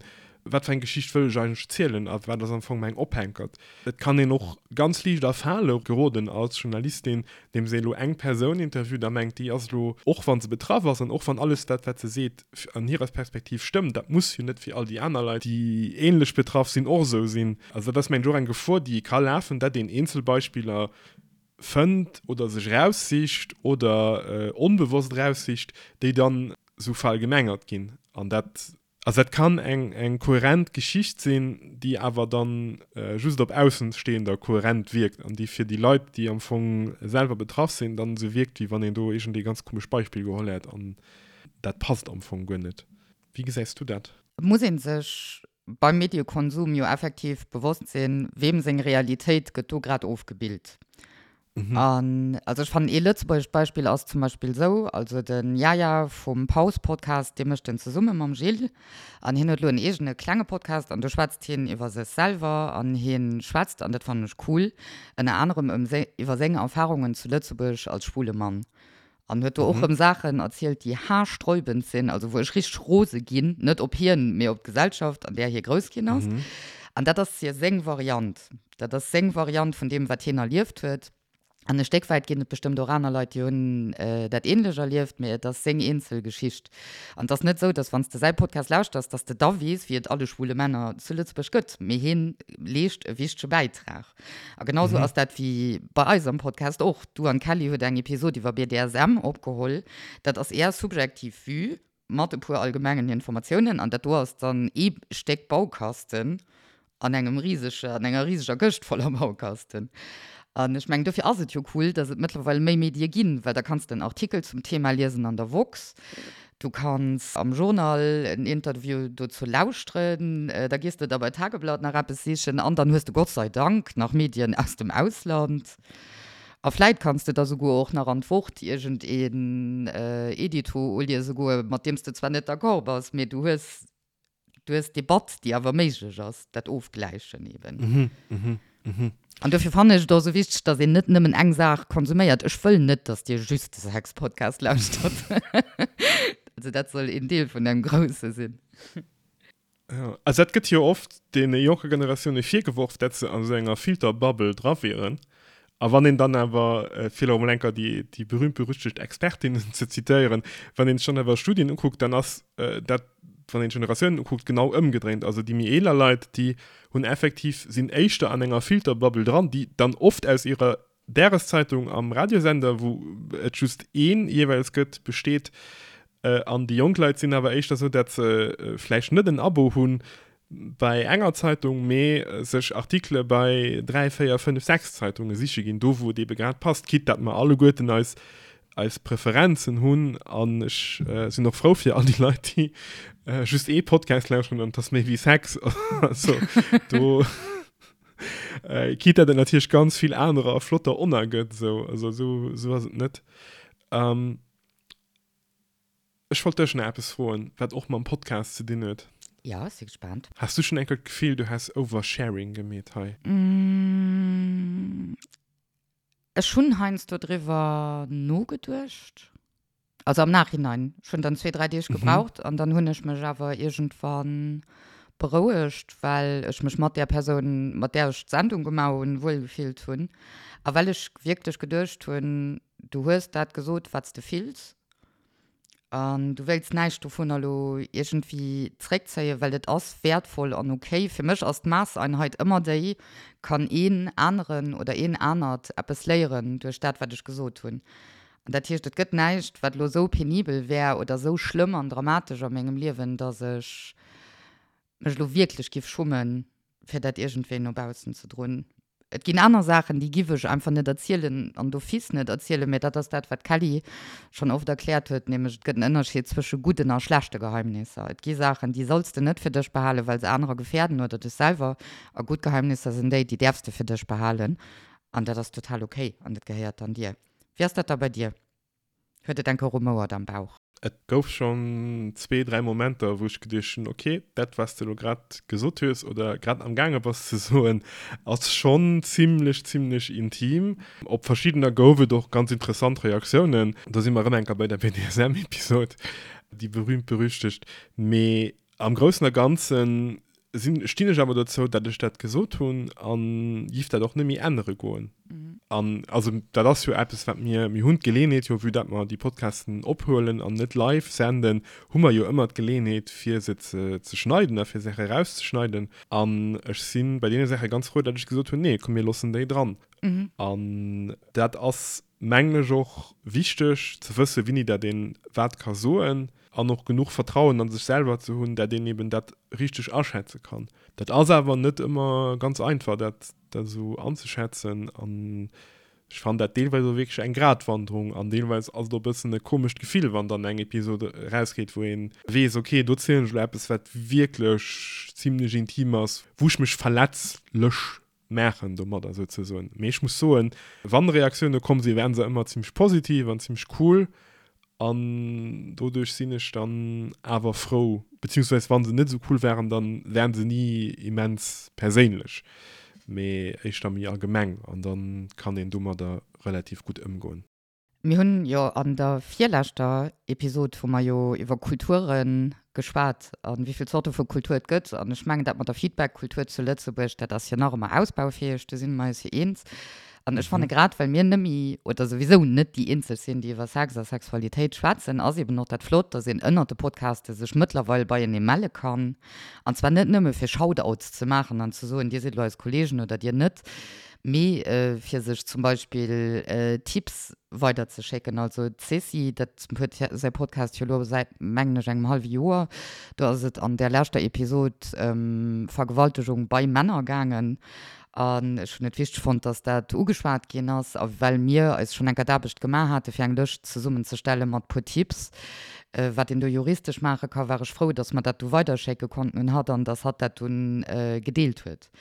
Wat fir eng Geschicht wëll ech eigentlech zielen a wat ass am Fong mäin Ophänkert? Et kann een och ganz liicht a Fale geroden als Journalistin, deem se elo eng Persoun interviewt a mengt, déi ass elo, och wa se betraff ass an och wann alles dat, wat se seet, an hirer Perspektiv stëmmt, dat muss jo net fir all déi aner Leit, déi ähnlech betraff sinn, och esou sinn. Also dat ass, mengen ech, och eng Gefor, déi ee ka lafen, dat een Eenzelbeispiller fënnt oder sech eraussicht oder onbewosst eraussicht, déi dann esou verallgemengert ginn. An dat Also dat kann eng eng kohärent Geschicht sinn, déi awer dann just op Aussenstehender kohärent wierkt an déi fir déi Leit, déi am Fong selwer betraff sinn, dann esou wierkt, wéi wann een do iergendee ganz komescht Beispill geholl hätt an dat passt am Fong guer net. Wéi gesäis du dat? Et muss ee sech beim Mediekonsum jo effektiv bewosst sinn, weem seng Realitéit gëtt do grad ofgebilt. An also ech fannen ee lëtzebuergescht Beispill ass zum Beispill esou, also de Yaya vum Paus-Podcast, dee mécht en zesumme mam Gilles an hien huet elo en eegene klenge Podcast an do schwätzt hien iwwer sech selwer an hien schwätzt, an dat fannen ech cool, ënner anerem ëm iwwer seng Erfarungen zu Lëtzebuerg als schwule Mann an huet do och rëm Saachen erzielt, déi haarsträubend sinn, also wou ech richteg rose ginn, net op hien, mee op d'Gesellschaft, an där hie grouss ginn ass. An dat ass hir seng Variant. Dat ass seng Variant vun deem, wat hien erlieft huet. An e Stéck wäit ginn et bestëmmt och aner Leit, déi hunn dat änlech erlieft, mee et ass seng eenzel Geschicht. An et ass net esou, datt wann s de säi Podcast lauschters, datt s de da weess, wéi et alle schwule Männer zu Lëtzebuerg gëtt, mee hien leescht e wichtege Bäitrag. A genau sou ass dat wéi bei eis am Podcast och. Du an d'Kelly hutt eng Episod iwwer BDSM opgeholl. Dat ass är subjektiv Vue mat e puer allgemengen Informatiounen an dat do ass dann ee Stéck Baukasten an engem risege, an enger riseger Këscht voller Baukasten. An ech mengen, dofir ass et jo cool, dass et mëttlerweil méi Medie ginn, well da kanns de en Artikel zum Thema liesen an der woxx, Du kanns am Journal en Interview dozou lauschteren, da gees de da bei Tageblatt nach eppes sichen an dann hues de Gott sei Dank nach Medien aus dem Ausland. A vläit kanns de da souguer och nach an d'Wort iergend een Edito uliese goen, mat deem s de zwar net d'accord bass, mee du hues Du hues d'Debatt, déi awer méiglech ass, dat Ofgläichen eben. An dofir fannen ech et och esou wichteg, dass een net nëmmen eng Saach konsuméiert. Ech wëll net, dass Dir just de Sex-Podcast lauschtert. Also dat soll een Deel vun engem Grousse sinn. Jo, also dat gëtt jo oft deene jonke Generatioune virgeworf, dat se an esou enger Filterbubble dra wieren. A wann een dann awer, fir elo emol eng Kéier déi, déi berühmt-berüchtegt Expertinnen ze zitéieren, wann een sech dann awer Studien ukuckt, dann ass dat, wann een d'Generatiounen ukuckt, genau ëmgedréint. Also déi méi eeler Leit, déi hunn effektiv, sinn éischter an enger Filterbubble dran, déi dann oft aus hirer Dageszeitung am Radiosender, wou et just een jeeweils gëtt, besteet. An déi jonk Leit sinn awer éischter esou, dat se vläicht net en Abo hunn, bei enger Zeitung, mee sech Artikele bei 3, 4, 5, 6 Zeitunge siche ginn, do wou et eebe grad passt, quitte dat mer alleguerten eis eis Preferenzen hunn. An ech sinn och frou fir all déi Leit, déi just ee Podcast lauschteren an et ass méi wéi Sex. Also do, quitte dat et natierlech ganz vill anerer a flotter onna gëtt, esou, also esou esou ass et net. Ech wollt dech nach eppes froen, wat och mam Podcast ze dinn huet. Jo, ech si gespaant. Has du schonn eng Kéier d'Gefill, du häss Oversharing gemeet hei? Ech hunn heiansdo driwwer nogeduecht. Also am Nachhinein. Ech hunn dann zwee, dräi Deeg gebraucht an dann hunn ech mech awer iergendwann berouegt, well ech mech mat där Persoun, mat där ech d'Sendung gemaach hunn, wuel gefillt hunn a well ech wierklech geduecht hunn, du hues dat gesot, wat s de fills. An du wéilts näischt dovunner elo iergendwéi zréckzéien, well et ass wäertvoll an ok. Fir mech ass d'Maasseinheit ëmmer déi, Kann een aneren oder een anert eppes léieren duerch dat, wat ech gesot hunn? An dat heescht, et gëtt näischt, wat elo esou penibel wär oder esou schlëmm an dramatesch a mengem Liewen, datt ech mech elo wierklech giff schummen, fir dat iergendwéi no baussen ze droen. Et ginn aner Saachen, déi giff ech einfach net erzielen an d'office net erzielen, mä dat ass dat, wat d'Kelly schonn oft erkläert huet, nämlech et gëtt en Ënnerscheed zwësche gudden a schlechte Geheimnisser. Et gi Saachen, déi solls de net fir dech behalen, well se anerer gefäerden oder dech selwer, a gutt Geheimnisser sinn déi, déi däerfs de fir dech behalen an dat ass total ok an dat gehéiert dann dir. Wéi ass dat da bei dir? Huet et enke rumouert am Bauch? Et gouf schonn zwee, dräi Momenter, wou ech geduecht hunn, ok, dat, wat s de elo grad gesot hues oder grad amgaange bass ze soen, ass schonn zimlech, zimlech intim. Op verschiddener gouf et och ganz interessant Reaktiounen. Do si mer erëm eng Kéier bei der BDSM-Episod, déi berühmt-berüchtegt. Mee am Groussen a Ganzen. Sinn, stinn ech awer dozou, dat ech dat gesot hunn a giff dat och net méi ännere goen. An also dat ass jo eppes, wat mir, mir hunn d'Geleeënheet jo, vue dat mer déi Podcasten ophuelen an net live senden, hu mer jo ëmmer d'Geleeënheet fir se ze ze schneiden a fir Saache erauszeschneiden. An ech si bei deene Saache ganz frou, dat ech gesot hunn, nee, komm mir loossen déi dran. An dat ass, mengen ech, och wichteg ze wëssen, wéini dat een wat ka soen. An och genuch Vertrauen an sech selwer ze hunn, dat een eben dat richteg aschätze kann. Dat ass awer net ëmmer ganz einfach, dat esou anzeschätzen. An ech fannen dat deelweis och wierklech eng Gratwanderung. An deelweis ass et och e bëssen e komescht Gefill, wann dann eng Episod erausgeet, wou ee weess, okay, do zielen ech elo eppes, wat wierklech zimlech intim ass, wou ech mech verletzlech maachen domadder souzesoen. Mee ech muss soen, wann Reaktioune komm sinn, waren se ëmmer zimmlech positiv an zimmlech cool an doduerch sinn ech dann awer frou, beziehungsweise wann se net esou cool waren, dann waren se ni immens perséinlech, mee éischter méi allgemeng an dann kann een domadder relativ gutt ëmgoen. Mir hunn jo an der virleschter Episod hu mer jo iwwer Kulture geschwat a wéi vill Zorte vu Kultur et gëtt. An ech mengen, dat mat der Feedback-Kultur zu Lëtzebuerg, dat ass jo nach ëmmer ausbaufäeg, do si mer eis jo eens. An ech fanne grad, well mir nëmme oder souwisou net déi eenzeg sinn, déi iwwer Sex a Sexualitéit schwätzen, ass eben och dat flott, dass een ënnert de Podcaste sech mëttlerweil beienee melle kann. An zwar net nëmme fir Shoutouts ze maachen an ze soen, dir sidd elo eis Kollegen oder dir net, Mee fir sech zum Beispill Tipps weiderzeschécken. Also d'Ceci, dat huet säi Podcast jo elo säit, mengen ech, engem hallwe Joer. Do ass et an där leschter Episod ëm Vergewaltegung bei Männer gaangen. An ech hunn et wichteg fonnt, dass dat ugeschwat ginn ass. A well mir eis schonn eng Kéier d'Aarbecht gemaach hate fir eng Lëscht zesummenzestelle mat puer Tipps, wat een do juristesch maache ka, war ech frou, dass mer dat du weiderschécke konnten un hatt an dass hatt dat dunn gedeelt huet.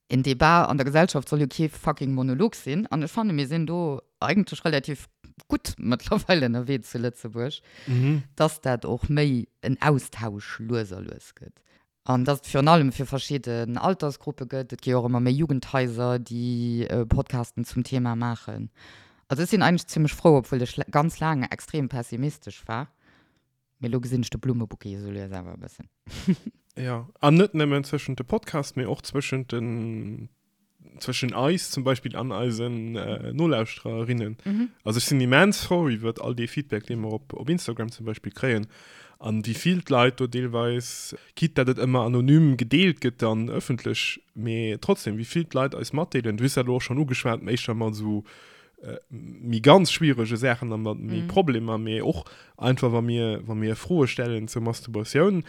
En Debat an der Gesellschaft soll jo kee fucking Monolog sinn. An ech fanne mir sinn do eigentlech relativ gutt mëttlerweil ënnerwee zu Lëtzebuerg, dass dat och méi en Austausch lues a lues gëtt. An dass et virun allem fir verschidden Altersgruppe gëtt. Et gi jo och ëmmer méi Jugendhaiser, déi Podcasten zum Thema maachen. Also ech sinn eigentlech zimmlech frou, obwuel ech ganz laang extrem pessimistesch war. Mee lo gesinn ech de Blummebouquet esou lues awer e bëssen. Jo, an net nëmmen zwëschent de Podcast, mee och zwëschent den, zwëschen eis zum Beispill an eisen Nolauschtererinnen. Also ech sinn immens frou iwwert all dee Feedback, dee mer op, op Instagram zum Beispill kréien an wéi vill d'Leit do deelweis, quitte dat et ëmmer anonym gedeelt gëtt dann ëffentlech, mee trotzdem, wéi vill d'Leit eis matdeelen. Du hues dat elo och schonn ugeschwat, éischter mat esou méi ganz schwierege Saachen a mat méi Problemer, mee och einfach wa mir, wa mir Froe stellen zur Masturbatioun,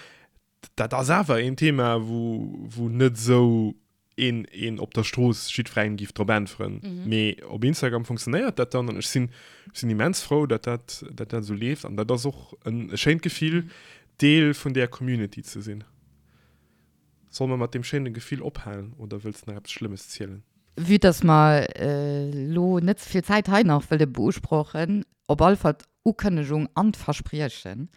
dat ass awer een Thema, wou, wou net esou een, een op der Strooss jiddwerengem giff drop äntweren. Mee op Instagram funktionéiert dat dann an ech sinn, ech sinn immens frou, datt dat, datt dat esou leeft an dat ass och en e schéint Gefill, Deel vun där Community ze sinn. Solle mer mat deem schéine Gefill ophalen oder wëlls de nach eppes Schlëmmes zielen? Vue dass mer elo net ze vill Zäit hei nach wëlle beusprochen, op alle Fall d'Ukënnegung an d'Verspriechen,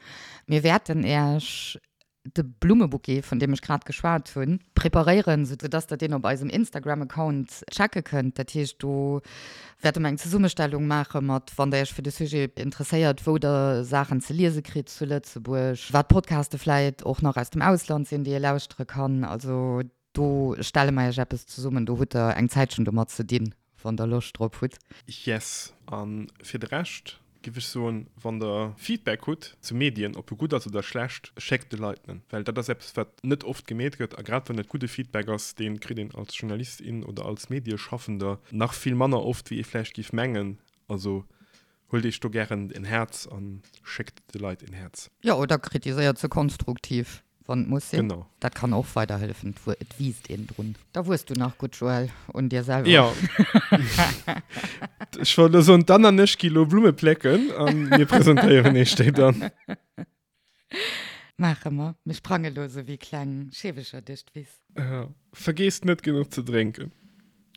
Mir wäerten Äech de Blummebouquet, vun deem ech grad geschwat hunn, preparéieren, soudass Der deen op eisem Instagram-Account checke kënnt. Dat heescht, do wäerte mer eng Zesummestellung maache mat, wann Der Iech fir de Sujet interesséiert, wou Der Saachen ze liese kritt zu Lëtzebuerg, wat Podcaste vläit och nach aus dem Ausland sinn, déi ee lauschtere kann. Also do stelle mer Iech eppes zesummen, do hutt Der eng Zäitchen domat ze dinn, wann Der Loscht drop hutt. Yes, a fir de Rescht giff ech soen, wann der Feedback hutt zu Medien, ob e gutt ass oder schlecht, schéckt de Leit en, well dat ass eppes wat net oft gemeet gëtt a grad wann et gudde Feedback ass, dee kritt een als Journalist, in oder als Medieschaffender nach vill manner oft wéi ee vläicht giff mengen. Also huelt iech do gären en Häerz a schéckt de Leit en Häerz. Jo, oder kritiséiert se konstruktiv. Wann et muss sinn. Genau. Dat kann och weiderhëllefen, et wiisst een drun. Da wuess du nach gutt, Joël, un dir selwer. Jo. Ech wollt elo soen, d'Anne an ech gi lo Blumme plécken a mir presentéieren iech déi dann. Maache mer. Mir sprange lo esou wéi kleng Scheewecher duerch d'Wiss. Jo. Vergeesst net genuch ze drénken.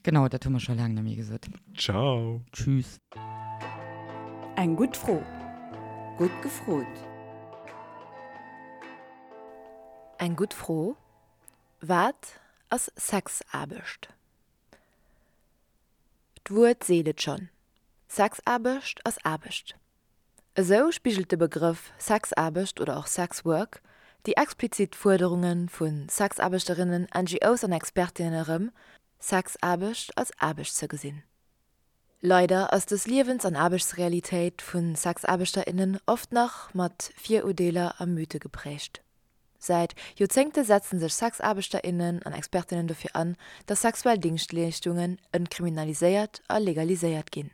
Genau, dat hu mer scho laang net méi gesot. Ciao. Tschüss. Eng gutt Fro. Gutt gefrot. Eng gutt Fro, Wat ass Sexaarbecht? D'Wuert seet et schonn, Sexaarbecht ass Aarbecht. Esou spigelt de Begrëff Sexaarbecht oder och Sexwork. déi explizit Fuerderunge vu Sexaarbechterinnen, NGOs an Expertinnen erëm, Sexaarbecht als Aarbecht ze gesinn. Leider ass dës Liewens an Aarbechtsrealitéit vu Sexaarbechterinnen oft nach mat Viruerdeeler a Mythe geprägt. Säit Joerzéngte setzen sech Sexaarbechterinnen an Expertinnen dofir an, dass sexuell Dingschtleeschtungen entkriminaliséiert a legaliséiert ginn.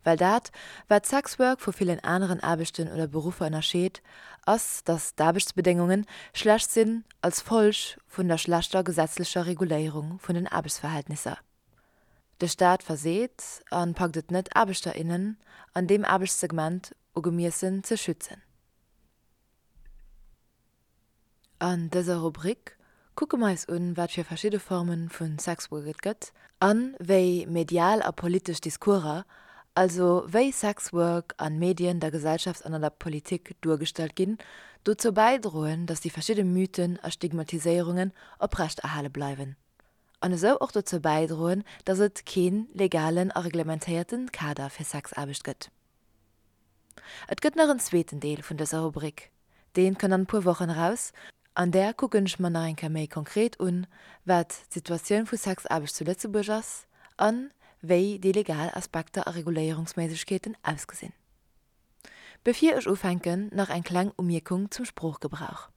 Well dat, wat Sexwork vu villen aneren Aarbechten oder Beruffer ënnerscheet, ass, dass d'Aarbechtsbedéngunge schlecht sinn als Folg vun der schlechter gesetzlecher Reguléierung vun den Aarbechtsverhältnisser. De Staat verseet a packt et net, Aarbechter, innen an deem Aarbechtssegment ugemiessen ze schützen. An dëser Rubrik kucke mer eis un, wat fir verschidde Forme vu Sexwork et gëtt an wéi medial a politesch Discourser, also wéi Sexwork an Medien, der Gesellschaft an an der Politik duergestallt ginn, dozou bäidroen, dass déi verschidde Mythen a Stigmatiséierungen oprechterhale bleiwen an esou och dozou bäidroen, dass et kee legalen a reglementéierte Kader fir Sexaarbecht gëtt. Et gëtt nach en zweeten Deel vun dëser Rubrik, deen kënnt an e puer Wochen eraus. An där kucken ech mer nach eng Kéier méi konkret un, wat d'Situatioun vu Sexaarbecht zu Lëtzebuerg ass an wéi déi legal Aspekter a Reguléierungsméiglechkeeten ausgesinn. Bevir ech ufänken, nach eng kleng Umierkung zum Sproochgebrauch.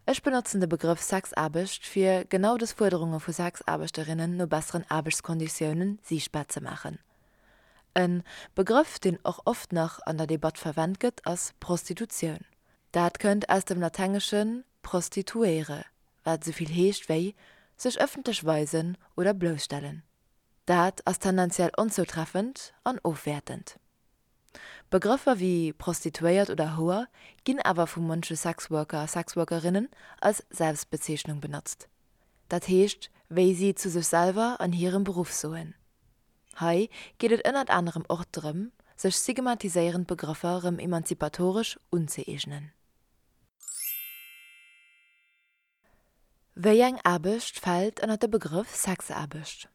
Ech benotzen de Begrëff Sexaarbecht, fir genau dës Fuerderunge vu Sexaarbechterinnen no besseren Aarbechtskonditiounen siichtbar ze maachen. E Begrëff, deen och oft nach an der Debatt verwent gëtt, ass Prostitutioun. Dat kënnt aus dem Latengesche prostituere, wat esou vill heescht wéi sech ëffentlech weisen oder blousstellen. Dat ass tendenziell onzoutreffend an ofwäertend. Begrëffer wéi Prostituéiert oder Houer ginn awer vu munche Sexworker a Sexworkerinnen als Selbstbezeechnung benotzt. Dat heescht, wéi si zu sech selwer an hirem Beruff soen. Hei geet et ënnert anerem och drëm, sech stigmatiséierend Begrëffer rëm emanzipatoresch unzëeegnen. Wéi eng Aarbecht fält ënner de Begrëff Sexaarbecht?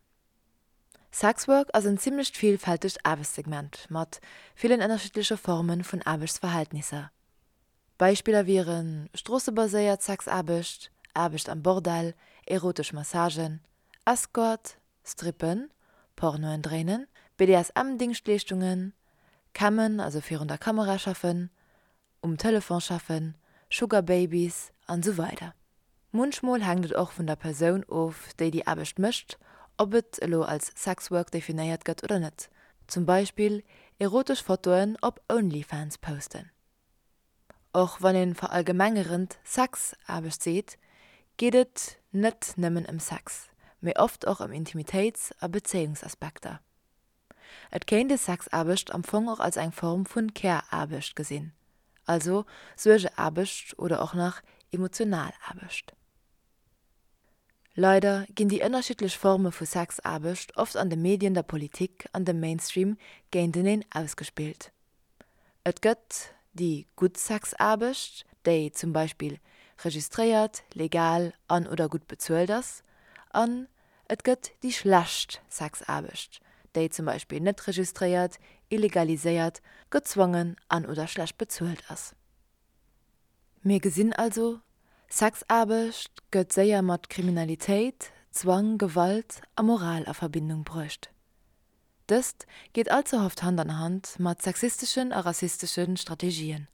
Sexwork ass en zimmlecht villfältegt Aarbechtssegment mat villen ënnerschiddleche Forme vun Aarbechtsverhältnisser. Beispiller wiere stroossebaséiert Sexaarbecht, Aarbecht am Bordell, erotesch Massagen, Escort, Strippen, Pornoen dréinen, BDSM-Dingschtleeschtungen, Cammen, also virun der Kamera schaffen, um Telefon schaffen, Sugar Babies an esou weider Munchmol hänkt et och vun der Persoun of, déi déi Aarbecht mécht, ob et elo als Sexwork definéiert gëtt oder net, zum Beispill erotesch Fotoen op Onlyfans posten. Och wann ee verallgemengerend Sexaarbecht seet, geet et net nëmmen ëm Sex, mee oft och ëm Intimitéits a Bezéiungsaspekter. Et kéint ee Sexaarbecht am Fong och als eng Form vun Care-Aarbecht gesinn, also Suergeaarbecht oder och nach emotional Aarbecht. Leider ginn déi ënnerschiddlech Forme vu Sexaarbecht oft an de Medien, der Politik an dem Mainstream géinteneen ausgespillt. Et gëtt déi gutt Sexaarbecht, déi zum Beispill registréiert, legal an oder gutt bezuelt ass, an et gëtt déi schlecht Sexaarbecht, déi zum Beispill net registréiert, illegaliséiert, gezwongen an oder schlecht bezuelt ass. Mir gesinn also, Sexaarbecht gëtt séier mat Kriminalitéit, Zwang, Gewalt a Moral a Verbindung bruecht. Dëst geet all ze oft Hand an Hand mat sexisteschen a rassistesche Strategien.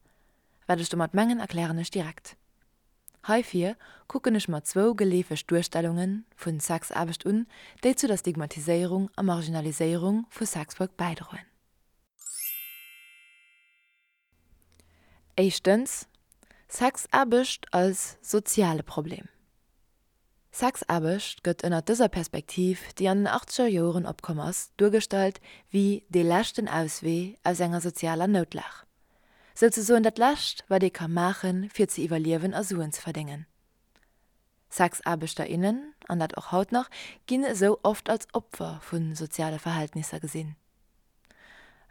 Wat ech domat mengen erklären ech direkt. Heifir kucken ech mer zwou geleefeg Duerstellunge vu Sexaarbecht un, déi zu der Stigmatiséierung a Marginaliséierung vu Sexwork bäidroen. Éischtens, Sexaarbecht als soziale Problem. Sexaarbecht gëtt ënnert dëser Perspektiv, déi an den achtzeger Joren opkomm ass, duergestallt wéi dee leschten Auswee aus enger sozialer Noutlag. Souzesoen dat Lescht, wat ee ka maachen, fir ze iwwerliewen a Suen ze verdéngen. Sexaarbechter, innen, an dat och haut nach, ginn esou oft als Opfer vu soziale Verhältnisser gesinn.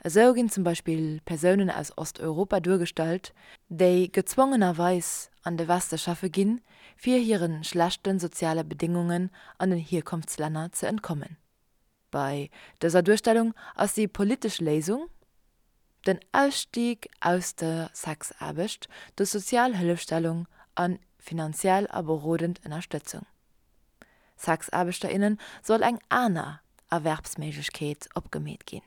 Esou ginn zum Beispill Persounen aus Osteuropa duergestallt, déi gezwongenerweis an de Weste schaffe ginn, fir hire schlechte soziale Bedéngungen an den Hierkonftslänner ze entkommen. Bei dëser Duerstellung ass déi politesch Léisung. Den Ausstieg aus der Sexaarbecht duerch sozial Hëllefstellung a finanziell a berodend Ënnerstëtzung. Sexaarbechter, innen soll eng aner Erwerbsméiglechkeet opgemeet ginn.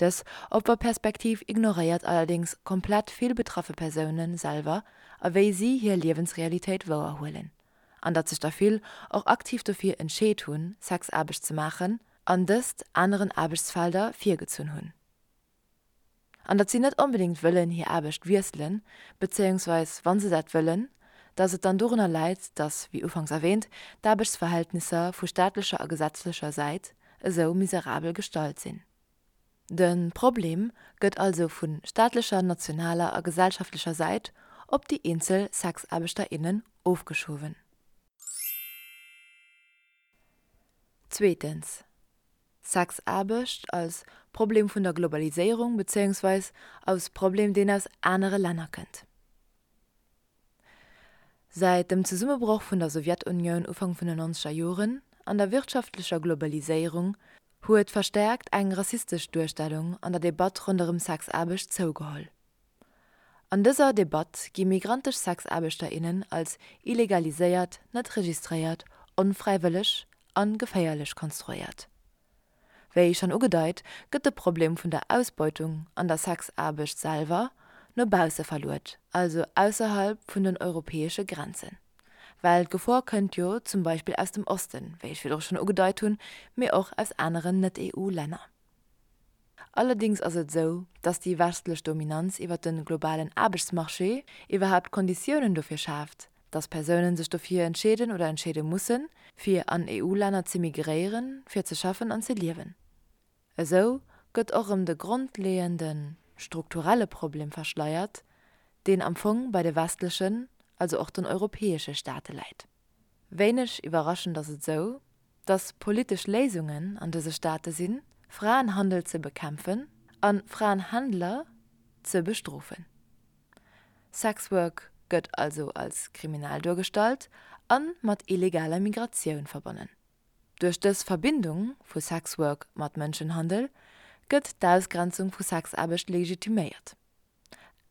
Dës Opferperspektiv ignoréiert allerdéngs komplett vill betraffe Persoune selwer a wéi si hir Liewensrealitéit wouerhuelen, an datt sech der vill och aktiv dofir entscheet hunn, Sexaarbecht ze maachen an dëst aneren Aarbechtsfelder virgezunn hunn. An datt si net onbedéngt wëllen hir Aarbecht wiesselen, bezéiungsweis wa se dat wëllen, datt et dann dorunner läit, datt, wéi ufanks erwähnt, d'Aarbechtsverhältnisser vu staatlecher a gesetzlecher Säit esou miserabel gestalt sinn. De Problem gëtt also vu staatlecher, nationaler a gesellschaftlecher Säit op déi eenzel Sexaarbechter, innen ofgeschowen. Zweetens, Sexaarbecht als Problem vun der Globaliséierung bezéiungsweis als Problem, deen aus anere Länner kënnt. Säit dem Zesummebroch vun der Sowjetunioun Ufank vun den nonzeger Joren an der wirtschaftlecher Globaliséierung huet verstäerkt eng rassistesch Duerstellung an der Debatt ronderëm Sexaarbecht zougeholl. An dëser Debatt gi migrantesch Sexaarbechter, innen als illegaliséiert, net registréiert, onfräiwëlleg a geféierlech konstruéiert. Wéi schonn ugedeit, gëtt de Problem vun der Ausbeutung an der Sexaarbecht selwer no bausse verluet, also ausserhalb vun den europäesche Grenzen. Well d'Gefor kënnt jo zum Beispill aus dem Osten, wéi ech virdru schonn ugedeit hunn, mee och aus aneren Net-EU-Länner. Allerdings ass et esou, dass déi westlech Dominanz iwwer de globalen Aarbechtsmarché iwwerhaapt d'Konditiounen dofir schaaft, dass Persounen sech dofir entscheeden oder entscheede mussen, fir an EU-Länner ze migréieren, fir ze schaffen an ze liewen. Esou gëtt och erëm de grondleeënde strukturelle Problem verschleiert, deen am Fong bei de westlechen, also och den europäesche Staate läit. Wéineg iwwerraschend ass et esou, dass politesch Léisungen an dëse Staate sinn, Fraenhandel ze bekämpfen a Fraenhändler ze bestrofen. Sexwork gëtt also als kriminell duergestallt a mat illegaler Migratioun verbonnen. Duerch dës Verbindung vu Sexwork mat Mënschenhandel gëtt d'Ausgrenzung vu Sexaarbecht legitiméiert.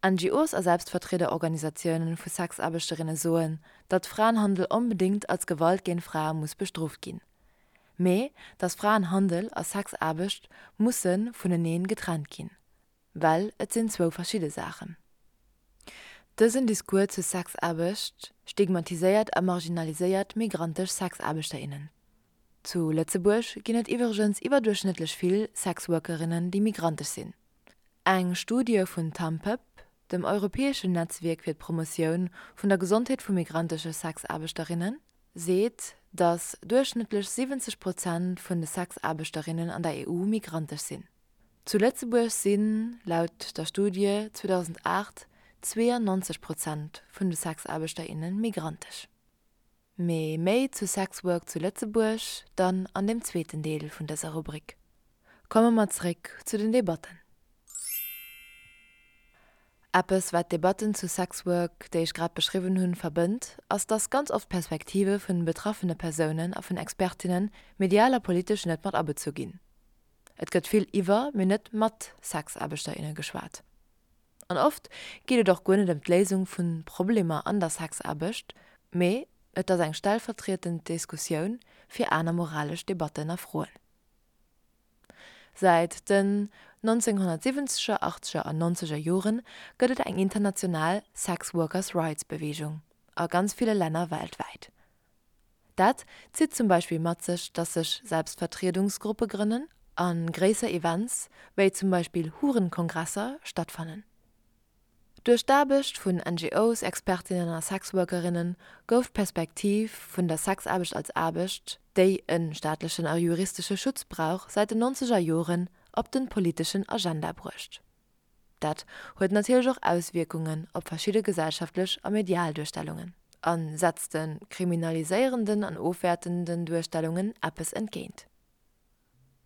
NGOs a Selbstvertriederorganisatiounen vu Sexaarbechterinne soen, datt Fraenhandel onbedéngt als Gewalt géint Frae muss bestrooft ginn, mee datt Fraenhandel a Sexaarbecht musse vuneneen getrennt ginn, well et sinn zwou verschidde Saachen. Dësen Discours zur Sexaarbecht stigmatiséiert a marginaliséiert migrantesch Sexaarbechterinnen. Zu Lëtzebuerg ginn et iwwregens iwwerduerchschnëttlech vill Sexworkerinnen, déi migrantesch sinn. Eng Studie vun TAMPEP, dem europäeschen Netzwierk fir d'Promotioun vun der Gesondheet vu migrantesche Sexaarbechterinnen, seet, datt duerchschnëttlech 70 Prozent vun de Sexaarbechterinnen an der EU migrantesch sinn. Zu Lëtzebuerg sinn, laut der Studie 2008, 92 Prozent vun de Sexaarbechter, inne migrantesch. Mee méi zu Sexwork zu Lëtzebuerg dann an dem zweeten Deel vun dëser Rubrik. Komme mer zréck zu den Debatten. Eppes wat d'Debatten zu Sexwork, déi ech grad beschriwwen hunn, verbënnt, ass dass ganz oft d'Perspektive vun betraffene Persounen a vun Expertinnen medial a politesch net mat abezu ginn. Et gëtt vill iwwer, mee net mat Sexaarbechter, inne geschwat. An oft geet et och guer net ëm d'Léisung vu Problemer an der Sexaarbecht, mee et ass eng stellvertrietend Diskussioun fir aner moralesch Debatten a Froen. Säit den 1970er, achtzeger an nonzeger Jore gëtt et eng international Sex Workers Rights Beweegung a ganz ville Länner weltwäit. Dat zitt zum Beispill mat sech, dass sech Selbstvertriedungsgruppe grënnen a gréisser Events, wéi zum Beispill Hurenkongresser, stattfannen. Duerch d'Aarbecht vun NGOs, Expertinnen a Sexworkerinnen gouf d'Perspektiv vun der Sexaarbecht als Aarbecht, déi e staatlechen a juristesche Schutz brauch, säit den nonzeger Joren op de politeschen Agenda bruecht. Dat huet natierlech och Auswierkungen op verschidde gesellschaftlech a medial Duerstellungen a setzt de kriminaliséierenden an ofwäertenden Duerstellungen eppes entgéint.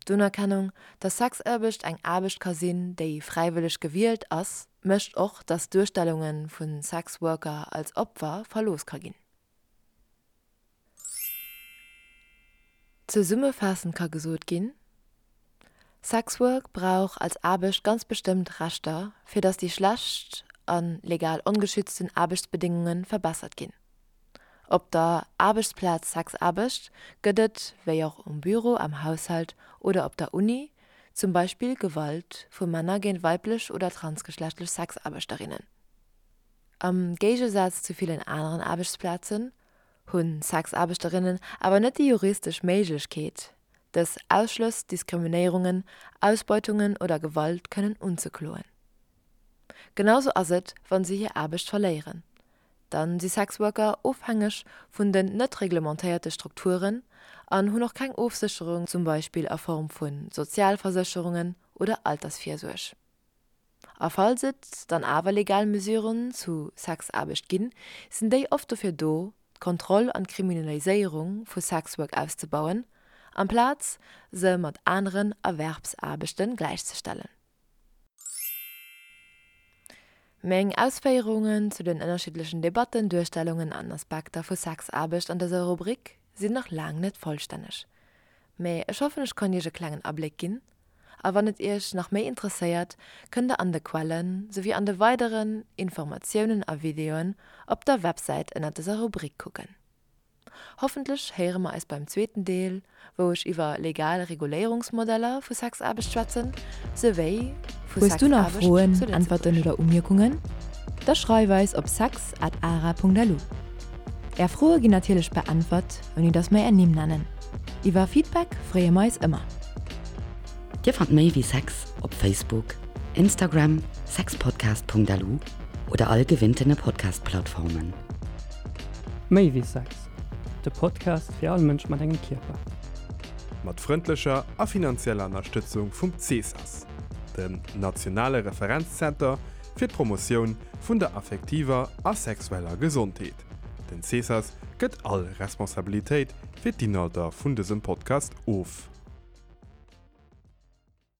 D'Unerkennung, dass Sexaarbecht eng Aarbecht ka sinn, déi fräiwëlleg gewielt ass, mécht och, dass Duerstellunge vu Sexworker als Opfer verlooss ka ginn. Zesummefaassend ka gesot ginn, Sexwork brauch als Aarbecht ganz bestëmmt Rechter, fir datt déi schlecht a legal ongeschützten Aarbechtsbedéngunge verbessert ginn. Op der Aarbechtsplaz Sexaarbecht gëtt et, wéi och um Büro, am Haushalt oder op der Uni, zum Beispill Gewalt vu Männer géint weiblech oder transgeschlechtlech Sexaarbechterinnen. Am Géigesaz zu villen aneren Aarbechtsplazen hu Sexaarbechterinnen awer net déi juristesch Méiglechkeet, dës Ausschlëss, Diskriminéierungen, Ausbeutungen oder Gewalt kënnen unzekloen. Genausou ass et, wa se hir Aarbecht verléieren. Dann si Sexworker ofhängeg vun den net reglementéierte Strukturen an hunn och keng Ofsécherung, zum Beispill a Form vu Sozialversécherungen oder Altersvirsuerg. A falls et dann awer legal Mesuren zu Sexaarbecht ginn, sinn déi oft dofir do, d'Kontroll an d'Kriminaliséierung vu Sexwork auszebauen, amplaz se mat aneren Erwerbsaarbechte gläichzestellen. Meng Ausféierungen zu den ënnerschiddlechen Debatten, Duerstellungen an Aspekter vu Sexaarbecht an dëser Rubrik sinn nach laang net vollstänneg, mä ech hoffen ech konnt iech e klengen Abléck ginn A wann et iech nach méi interesséiert, kënnt der an de Quellen, souwéi an de weideren Informatiounen a Videoen op der Websäit ënnert dëser Rubrik kucken. Hoffentlech héiere mer eis beim zweeten Deel, wou ech iwwer legal Reguléierungsmodeller vu Sexaarbecht schwätzen, souwéi vu Hues du nach Sexaarbecht Froen, zu Äntwerten Lëtzebuerg. oder Umierkungen? Da schreif eis op sex at ara.lu. Är Froe ginn natierlech beäntwert, ouni dass mer är Nimm nennen. Iwwer Feedback freeë mer eis ëmmer. Dir fannt méi wéi Sex op Facebook, Instagram, sexpodcast.lu oder all gewinntene Podcast-Plattformen. Méi wéi Sex, de Podcast fir all Mënsch mat engem Kierper. Mat frëndlecher a finanzieller Ënnerstëtzung vum CSAS, dem nationale Referenzzenter fir d'Promotioun vun der affektiver a sexueller Gesondheet. Den CSAS gëtt all Responsabilitéit fir d'Inhalter vun dësem Podcast of.